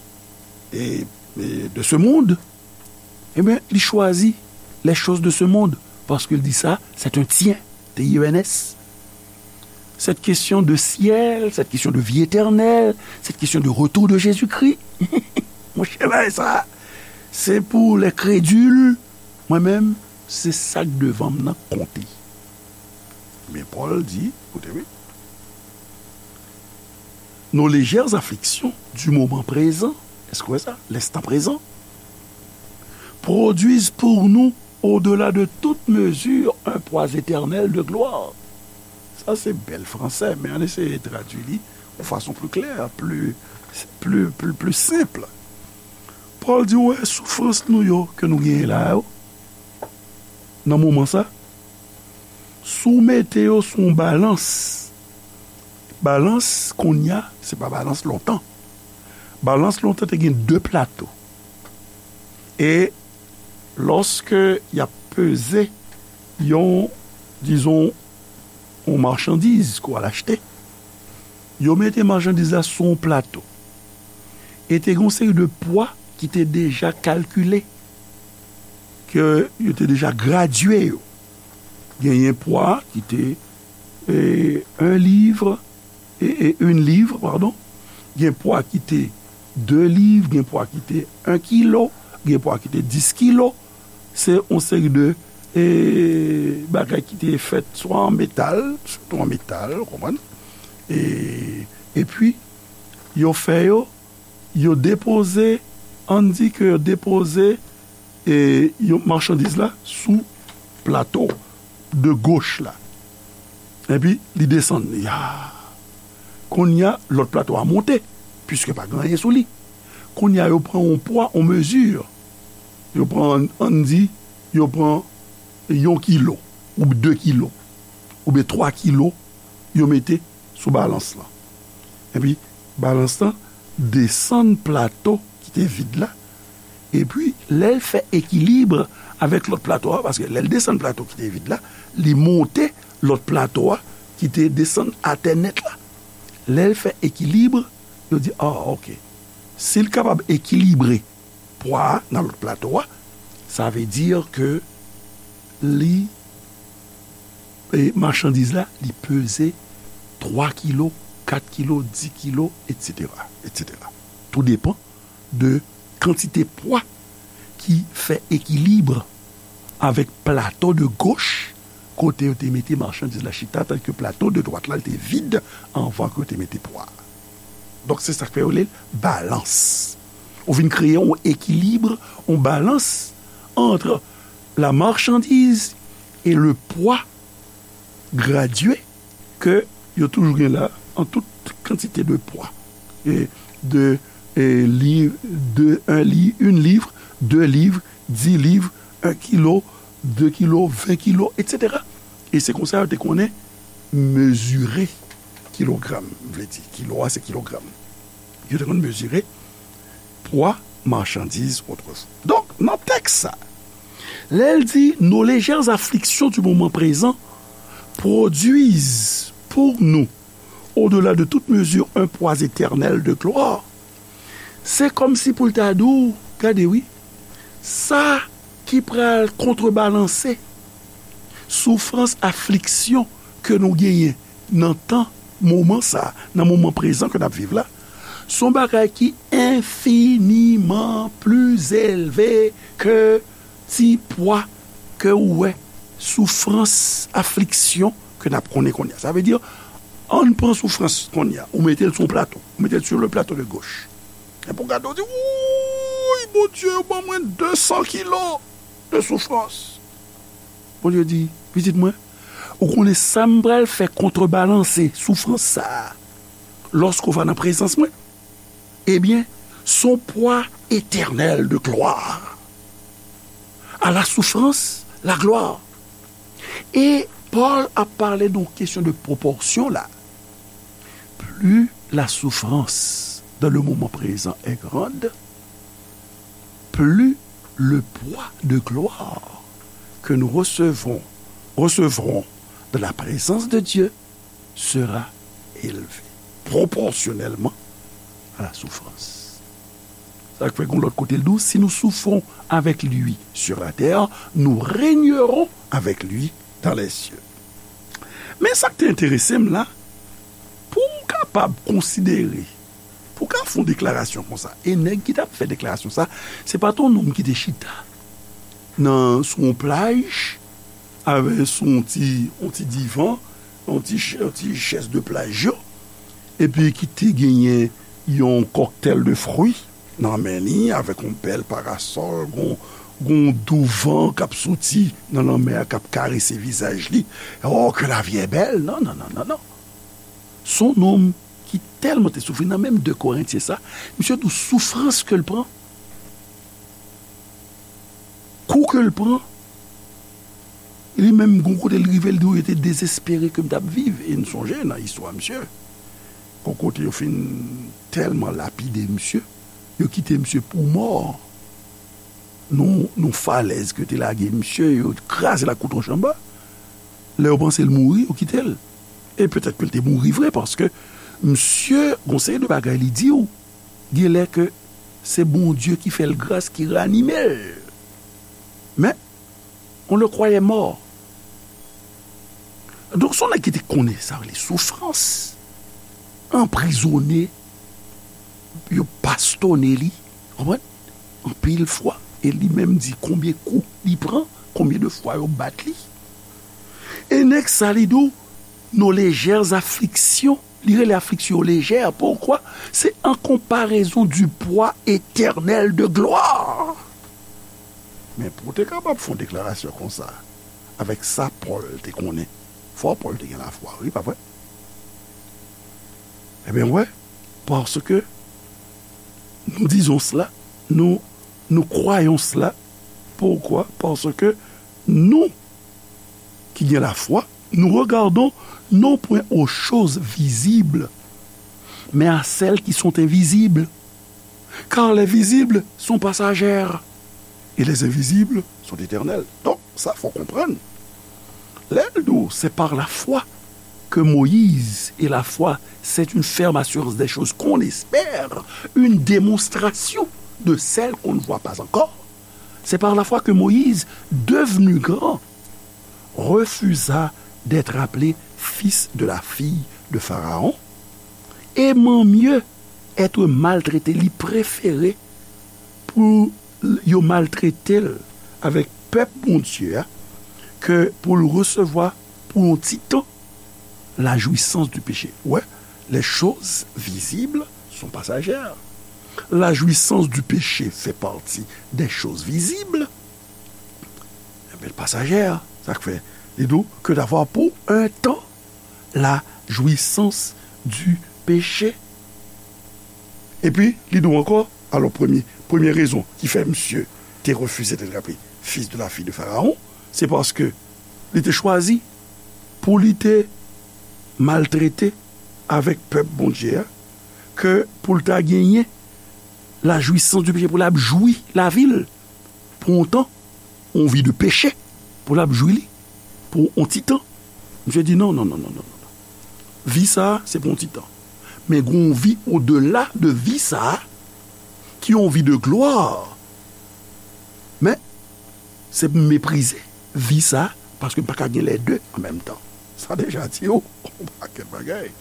et, et de ce monde, ebyen, li chwazi les choses de ce monde, paske l di sa, c'est un tien, T I E N S. Cette question de ciel, cette question de vie éternelle, cette question de retour de Jésus-Christ, monchè, bagay sa, se pou les crédules. Mwen menm, se sa k devan m nan k konte. Men Pòl di, koute byen, nos légères afflictions du moment présent, èske w wè sa? L'instant présent, produisent pour nous, au-delà de toute mesure, un poids éternel de gloire. Sa se bèl fransè, men ann eseye tradui li yon fason pli klè, pli, pli, pli, pli senp. Pòl di, w wè soufrans nou yo ke nou genyen la yo, nan moman sa, si w mete yo sou yon balans, balans kounye a, se pa balans lontan. Balans lontan te gen de plato. E lòske y ap peze yon, dizon, yon machandiz ke w al achte, yo mete machandiz la sou yon plato. E te gen yon seri de pwa ki te deja kalkile, ke yo te deja gradye yo. Genyen pwa ki te, e, un livre, e, e, une livre, pardon. Gen pwa ki te de liv, gen pwa ki te un kilo, gen pwa ki te dis kilo. Se yon seri de e, bagay ki te fèt swa an metal, sitou an metal, ou konprann? E, epi, yo fè yo, yo depoze, ann di ke yo depoze, e, yo machandiz la sou plato de goch la. Epi, li desann li. A! Kounye a, lòt plato a monte, piske pa gen anyen sou li. Kounye a, yo pran yon pwa, yon mezi. Yo pran, ann di, yo pran yon kilo, ou de kilo, oubyen twa kilo, yo mete sou balans lan. Epi, balans lan desann plato ki te vid la. Epi, lè l fè ekilib avèk lòt plato a, paske lè l desann plato ki te vid la, li monte lòt plato a ki te desann atè nèt la. Lè l fè ekilib, yo di, a, oke. Si l kapab ekilibre pwa a nan lòt plato a, sa vle di ke li, e, machandiz la, li peze twa kilo, kat kilo, dis kilo, etsetera, etsetera. Tou depann de kantite pwa ki fè ekilib avèk plato de goch, kote yo te mete machandiz la chita, tandiske plato de dwat la, li te vid anvan ke yo te mete pwa. Donk, se sa k fè yo rele l balans. Ou vin kreye yon ekilib, yon balans ant la marchandise et le poids gradué ke yo toujou gen la an tout kantite de pwa. E de, e, liv, de, un li-, une livre, deux livres, dix livres, un kilo, de kilo, ven kilo, etsetera. E se konsa yo te konnen mezire kilogram, vle di, kilo a se kilogram. Yo te konn mezire pwa machandiz otrefwa. Donk, nan tèks sa, lè l di, nos légères afflictions du moment présent produisent pour nous, au-delà de toute mesure, un poids éternel de gloire, se kòmsi pou l ta di w, gade wi, sa ki pral kontrebalanse soufrans, afliksyon ke nou genyen nan tan, moman sa, nan moman prezan ke n ap viv la, se yon bagay ki enfiniman pli elve ke ti pwa ke ou wè, soufrans, afliksyon ke n ap konnen kounye a. Sa vle di, ann pran soufrans kounye a, ou mete l sou yon plato, ou mete l sur le plateau de gauche. Epi w gade, w di, wouy, Bondye, ou ban mwen de san kilo de soufrans. Bondye di, pitit mwen, ou konnen sa m pral fè kontrebalanse soufrans sa a lòske w va nan prezans mwen? Ebyen, se yon pwa etènèl de glwa. À la souffrance, la gloire. E Pòl ap pale de yon kesyon de pwopòsyon la. Plus la souffrance dans le moment présent est grande, plus le poids de gloire que nous recevons, recevrons de la présence de Dieu sera élevé proportionnellement à la souffrance. Sa k fè gon lòt kote l di w, si nous souffrons avec lui sur la terre, nous régnerons avec lui dans les cieux. Men sa k te enterese m la, pou w kapab konsidere, pou w ka fè yon deklarasyon konsa, e nèg ki t ap fè deklarasyon sa, se pa t yon nonm ki te chita nan, sou yon plaj, avè, sou yon ti, yon ti divan, yon ti ch-, yon ti chèz de plaj yo, epi ki te genyen yon kòktèl de fwi nan men li, avèk yon bèl parasòl, gon, gon dou van k ap soti nan lanmè a, k ap karese vizaj li. Oh, que la vie est belle! Non, non, non, non, non. Se yon nonm ki tèlman te soufri, nan menm de Korentyen sa, misye di w soufrans ke l pran, kou ke l pran, li menm, gon kote l rive, l di w, yo te dezespere ke m t ap viv. E n sonje nan istwa misye, gon kote yo fin tèlman lapide misye, yo kite misye pou mò. Non, non falèz ke te lage misye, yo kraze l ak kout wòch anba. Lè yo panse l mouri, yo kite l. E petèt ke l te mouri vre, paske misye, gon seri de bagay li di w, genlè ke se Bondye ki fè l gras, ki ranime l. Men, on le croyait mort. Donk, se yon nèg ki te konnen sa rele soufrans, anprizone, yo bastone li, konprann? Anpil fwa, e li menm di konbyen kou li pran, konbyen de fwa yo bat li. E nèg sa, li di w, nos légères afflictions. Li rele afliksyon yo lejè. Poukwa? C'est en comparaison du poids éternel de gloire. Men pou w te kapab fè yon deklarasyon konsa, avèk sa Pòl te konnen, fò Pòl te gen lafwa, wi, pa vre? Ebyen, wè, paske nous disons cela, nous, nous croyons cela. Pourquoi? Parce que nous, qui gagnons la foi, nous regardons non point aux choses visibles, mais à celles qui sont invisibles. Car les visibles sont passagères et les invisibles sont éternels. Donk, sa fò konprann. Lè l di w, c'est par la foi que Moïse, et la foi, c'est une ferme assurance des choses qu'on espère, une démonstration de celles qu'on ne voit pas encore. C'est par la foi que Moïse, devenu grand, refusa d'être appelé fils de la fille de Pharaon, aimant mieux être maltraité, li prefere pou yo maltrete l avèk pèp Bondye a, ke pou l resevwa pou yon ti tan la jouissance du péché. Ouais, les choses visibles sont passagères. La jouissance du péché fait partie des choses visibles. Ebyen, l pasajè, sa k fè li di w, que d'avoir pour un temps la jouissance du péché. Epi, li di w ankò, alò, premye, premye rezon ki fè misye te refize d'être appelé fils de la fille de Pharaon, se paske li te chwazi pou li te maltrete avèk pèp Bondye a, ke pou l ta genyen la jouissance du péché, pou l ap jwi lavi l pou yon tan, yon vi de peche, pou l ap jwi li pou yon ti tan. Misye di non, non, non, non, non, non. Vi sa a, se pou yon ti tan. Men gen yon vi odela de vi sa a, ki yon vi de glwa. Men, se pou m meprize vi sa a, paske m pa ka gen lè de an menm tan. Sa deja di w yon pakèt bagay.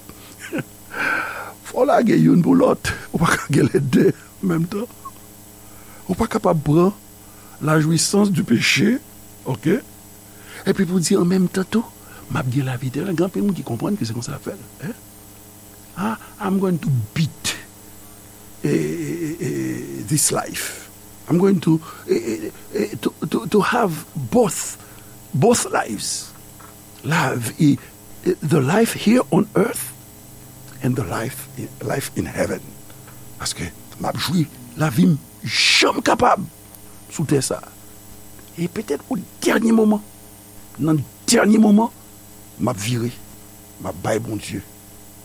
Fò w lage youn pou lòt. Ou pa ka gen lè de an menm tan. Ou pa kapab pran la jouissance du péché, ok? Epi pou di an menm tan tou, m ap gen lavi etènèl. Gen anpil moun ki konprann ke se konsa l ap fè l. Hein? Ah, I'm going to beat eh, eh, eh, this life. I'm going to, eh, eh, eh, to, to, to have both, both lives. Life, eh, eh, the life here on earth and the life, life in heaven. Paske m ap jwi lavi m jan m kapab sou tè sa a. E petèt o dènye moman, nan dènye moman, m ap vire, m ap bay Bondye,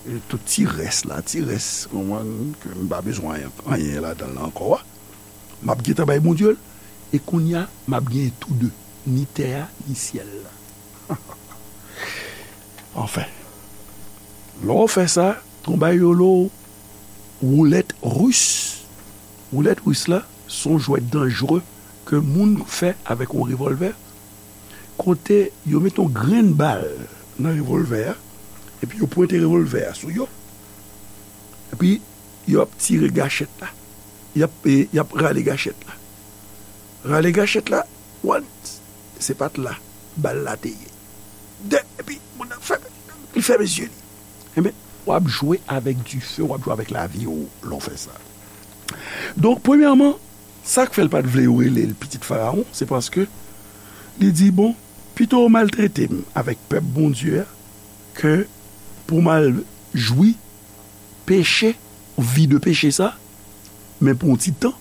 e, tout ti rès la, ti rès, konprann, ke m pa bezwen anyen, anyen ladan l la ankò a. M ap gentan bay Bondye l, e kounye a, m ap genyen tou de, ni tè a, ni syèl la. Anfen, lè w fè sa, gon bagay yo rele w woulèt ris. Woulèt ris la, se yon jwèt danjere ke moun fè avèk yon revòlvè, kote yo mete yon grenn bal nan revòlvè a, epi yo pwente revòlvè a sou yo, epi yo ap tire gachèt la. Y ap, e, y ap rale gachèt la. Rale gachèt la, one, se pa t la bal la te ye. De, epi moun nan fèmen, li fèmen zye li. Enben, w ap jwe avèk dife, w ap jwe avèk lavi w lè w fè sa. Donk, premyèman, sa k fè l pa t vle yo rele l pitit Farawon, se paske li di, bon, pito yo maltrete m avèk pèp Bondye a, ke pou m al jwi peche, vi de peche sa, men pou yon ti tan.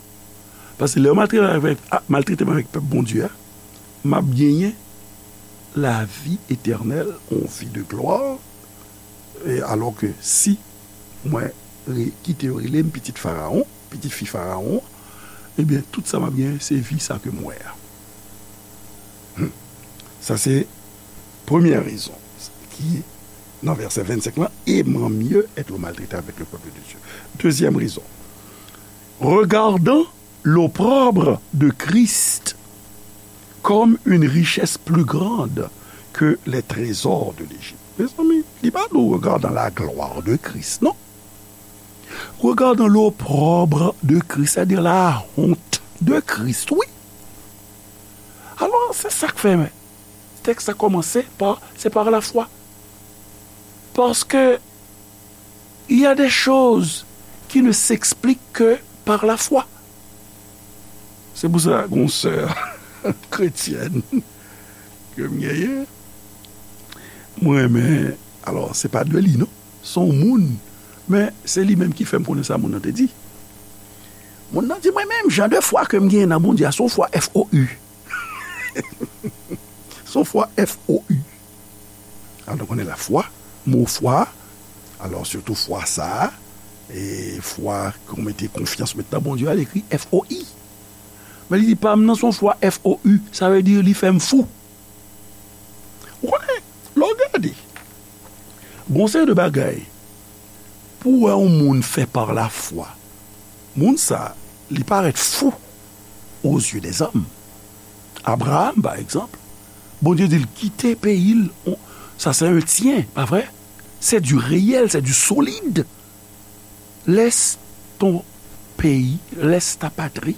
Paske lè yo maltrete avèk, a, maltrete m avèk pèp Bondye a, m ap genyen lavi etènèl, yon vi de glwa. E alò ke si mwen re-, kite yo rele m pitit Farawon, pitit fi Farawon, ebyen, tout sa m ap genyen, se vi sa ke m wè a. Hmm. Sa se premyè rezon ki nan vèsè vennsenk lan, aimant mieux être maltraité avec le peuple de Dieu. Deuxième raison, regardant l'opprobre de Christ comme une richesse plus grande que les trésors de l'Égypte. Mezanmi, li pa di w regardant la gloire de Christ, non. Regardant l'opprobre de Christ, c'est-à-dire la honte de Christ, wi. Alò, se sa k Fèmen. Tèks la kòmanse pa, c'est par la foi. Parce que il y a des choses qui ne s'expliquent que par la foi. Se pou sa, gon sè kretyèn ke m genyen, mwen renmen, alò, se pa de li, non. Se yon moun, men se li menm ki fè m konnen sa moun nan te di. Moun nan di, mwen menm, jan de fwa ke m genyen nan Bondye a, se yon fwa F O U. Se yon fwa F O U. Alò, nou konnen lafwa, mo fwa, alò, sitou fwa sa a, e fwa ke w mete konfyans w met nan Bondye a, li ekri F O I. Men li di, pa m nan se yon fwa F O U, sa vle di li fè m fou. Ou konnen, lè w gade, gon seri de bagay, pou w wè yon moun fè par la foi, moun sa, li parèt fou aux yeux des hommes. Abraham, pa egzanp, Bondye di l kite peyi l, on- sa se un tien, pa vre? C'est du réel, c'est du solide. Laisse ton pays, laisse ta patrie,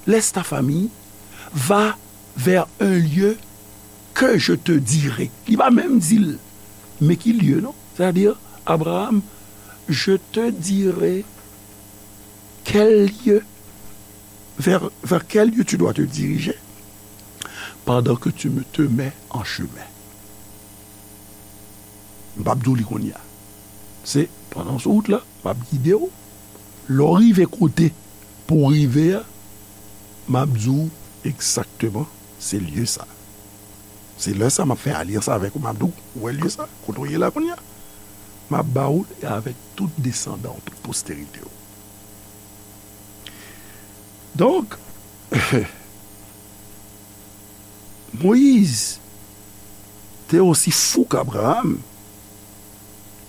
laisse ta famille, va vers un lieu que je te dirai. Li pa menm di l, men ki lye, non? Sètadi, Abraham, je te dirai quel lieu, vers, vers quel lieu tu dois te diriger pendant que tu me, te mets en chemin. M p ap di w li kounye a. Se pandan w sou wout la, m ap gide w. Lè w rive kote pou w rive a, m ap di w egzakteman se lye sa. Se lè sa m ap fè alyans avèk ou, m ap di w, ou wè lye sa, kote w ye la kounye a? M ap ba w li avèk tout desandan w, tout posterite w. Donk, Moïse était aussi fou qu'Abraham,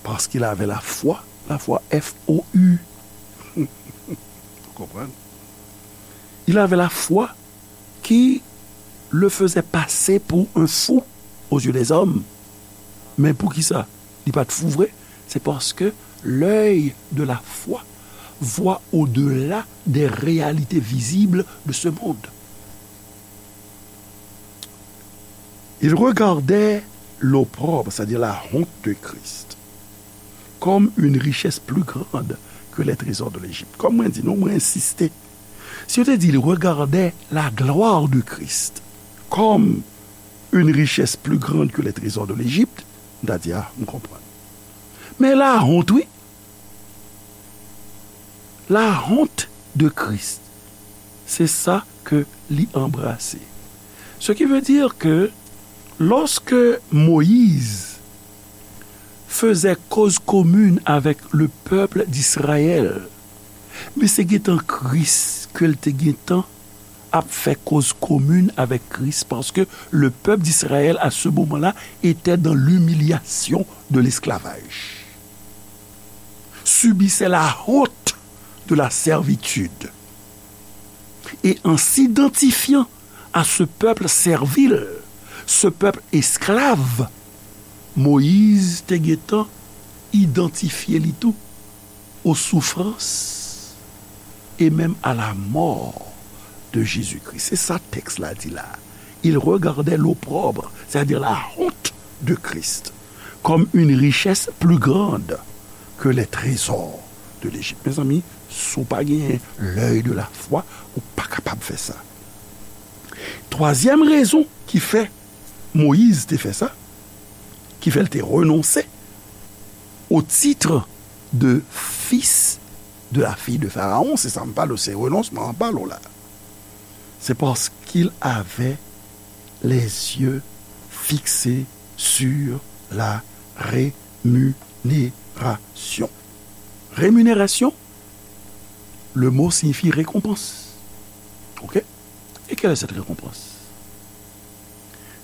parce qu'il avait la foi, la foi F O U. Vous comprenez? Il avait la foi qui le faisait passer pour un fou aux yeux des hommes. Men poukisa li pa t fou vre? C'est parce que l'œil de la foi voit au-delà des réalités visibles de ce monde. Il regardait l'opprobre, c'est-à-dire la honte de Christ, comme une richesse plus grande que les trésors de l'Égypte. Kòm mwen di nou, mwen ensiste. Si yo te di, il regardait la gloire de Christ comme une richesse plus grande que les trésors de l'Égypte, m ta di, a, m konprann. Men la honte, wi. La honte de Christ, c'est ça que li anbrase. Ce qui veut dire que lorsque Moïse faisait cause commune avec le peuple d'Israël, men se gentan Kris ke l te gentan ap fè cause commune avec Christ, parce que le peuple d'Israël à ce moment-là était dans l'humiliation de l'esclavage, subissait la honte de la servitude. Et en s'identifiant à ce peuple servile, ce peuple esclave, Moïse te gentan idantifye li tou aux souffrances et même à la mort de Jésus-Christ. Se sa tèks la di la. Il regardait l'opprobre, c'est-à-dire la honte de Christ, comme une richesse plus grande que les trésors de l'Égypte. Mezanmi, si w pa genyen l'œil de la foi, ou pa kapab fè sa. Twazyèm rezon ki fè Moyiz te fè sa, ki fè l te renonse au titre de fils de la fille de Pharaon, se sa m pale w, se renonsman an pale w la. C'est parce qu'il avait les yeux fixés sur la rémunération. Rémunération, le mot signifie récompense. OK? Et quelle est cette récompense?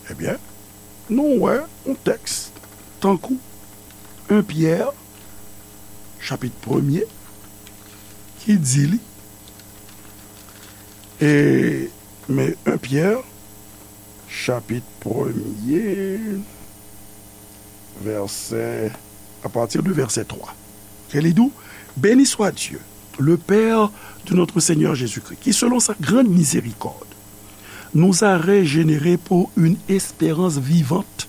Ebyen, nou wè yon tèks tankou un Pyè, chapit premye, ki di li, e, men un Pyè, chapit premye, vèsè, à partir de verset trois, ke li di w, Béni soit Dieu, le Père de notre Seigneur Jésus-Christ, qui, selon sa grande miséricorde, nous a régénérés pour une espérance vivante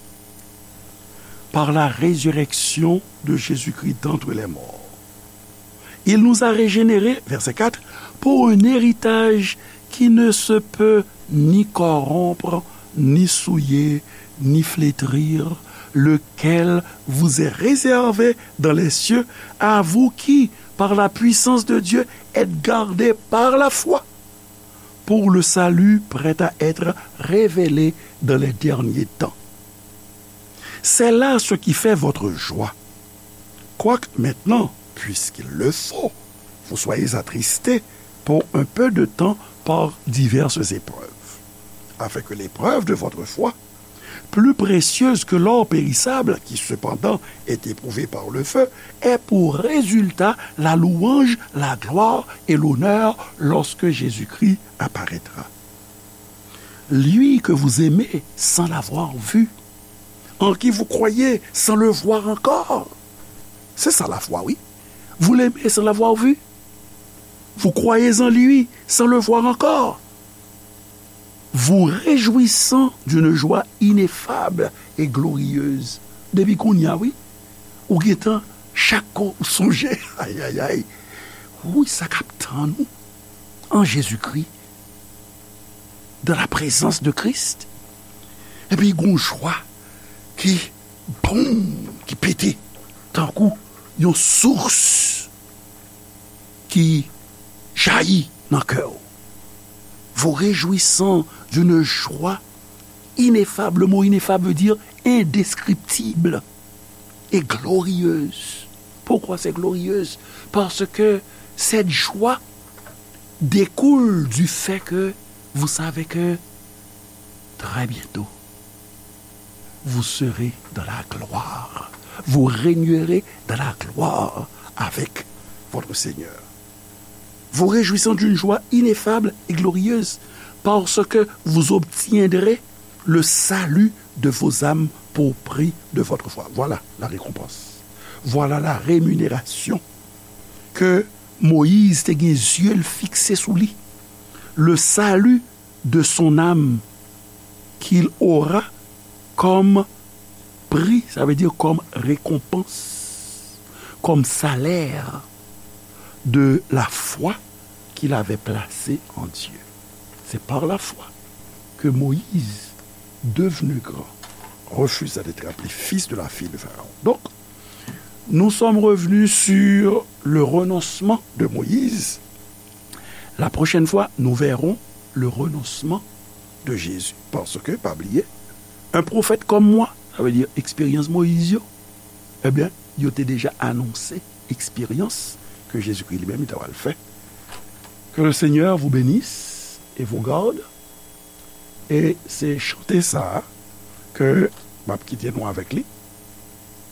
par la résurrection de Jésus-Christ d'entre les morts. Il nous a régénérés, verset quatre, pour un héritage qui ne se peut ni corrompre, ni souiller, ni flétrir, lequel vous est réservé dans les cieux, à vous qui, par la puissance de Dieu, êtes gardés par la foi pour le salut prêt à être révélé dans les derniers temps. C'est là ce qui fait votre joie. Quoique maintenant, puisqu'il le faut, vous soyez attristés pour un peu de temps par diverses épreuves, afin que l'épreuve de votre foi, plus précieuse que l'or périssable, qui cependant est éprouvé par le feu, ait pour résultat la louange, la gloire et l'honneur lorsque Jésus-Christ apparaîtra. Lui que vous aimez sans l'avoir vu, en qui vous croyez sans le voir encore. C'est ça la foi, oui. Vous l'aimez sans l'avoir vu. Vous croyez en lui sans le voir encore. Vous réjouissant d'une joie ineffable et glorieuse. Depi kounye a, wi, ou gentan, chak kou ou sonje, ayayay, wi, sa k ap tann ou an Jezikri, dans la présence de Christ. Epi gon jwa ki, boum, ki pete, tankou yon sous ki jayi nan kè w. Vous réjouissant d'une joie ineffable. Le mot ineffable veut dire indescriptible et glorieuse. Pourquoi c'est glorieuse? Parce que cette joie découle du fait que vous savez que très bientôt, vous serez dans la gloire. Vous régnerez dans la gloire avec votre Seigneur. Vous réjouissant d'une joie ineffable et glorieuse, parce que vous obtiendrez le salut de vos âmes pour prix de votre foi. Voilà la récompense. Voilà la rémunération que Moïse te gen zye l fikse sou li. Le salut de son âme qu'il aura comme prix, ça veut dire comme récompense, comme salaire de la foi qu'il avait placée en Dieu. C'est par la foi que Moïse, devenu grand, refusa d'être appelé fils de la fille de Pharaon. Donc, nous sommes revenus sur le renoncement de Moïse. La prochaine fois, nous verrons le renoncement de Jésus. Parce que, pa bliye, un prophète comme moi, sa vle di eksperyans Moyiz yo, ebyen, yo te deja anonse eksperyans ke Jezikri li menm li ta pral fè. Que le Seigneur vous bénisse et vous garde. E se chante sa a ke m ap kite nou avèk li.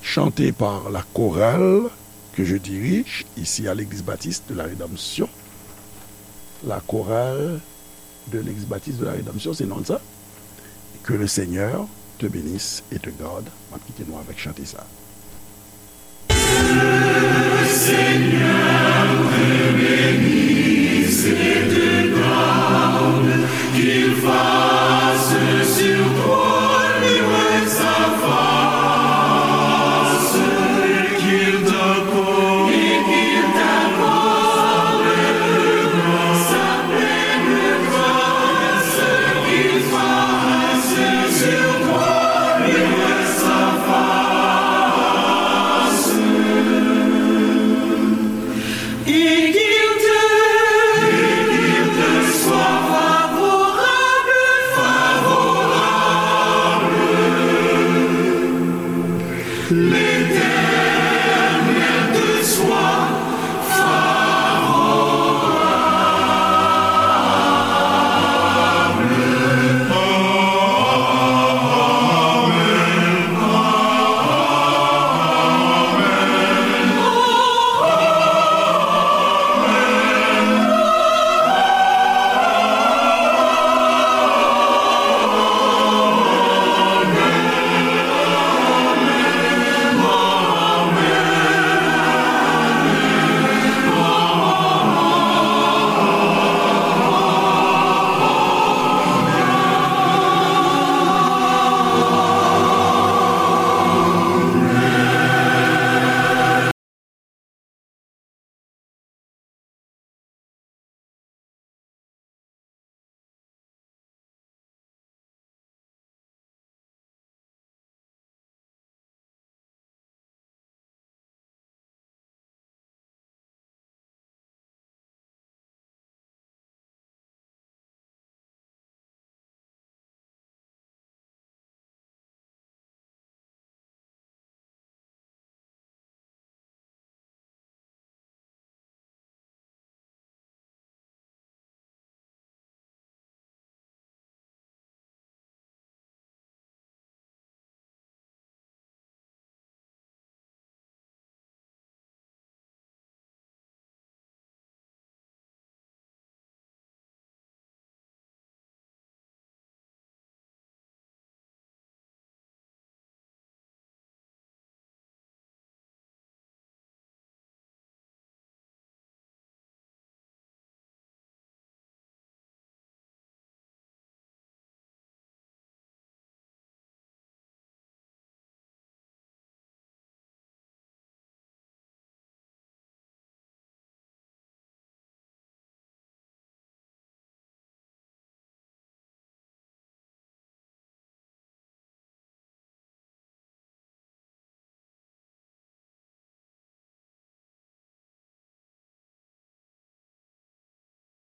Chanté par la chorale que je dirige ici à l'Église Baptiste de la Rédemption. La chorale de l'Église Baptiste de la Rédemption, se non l sa. Que le Seigneur te bénisse et te garde. M ap kite nou avèk chante sa a.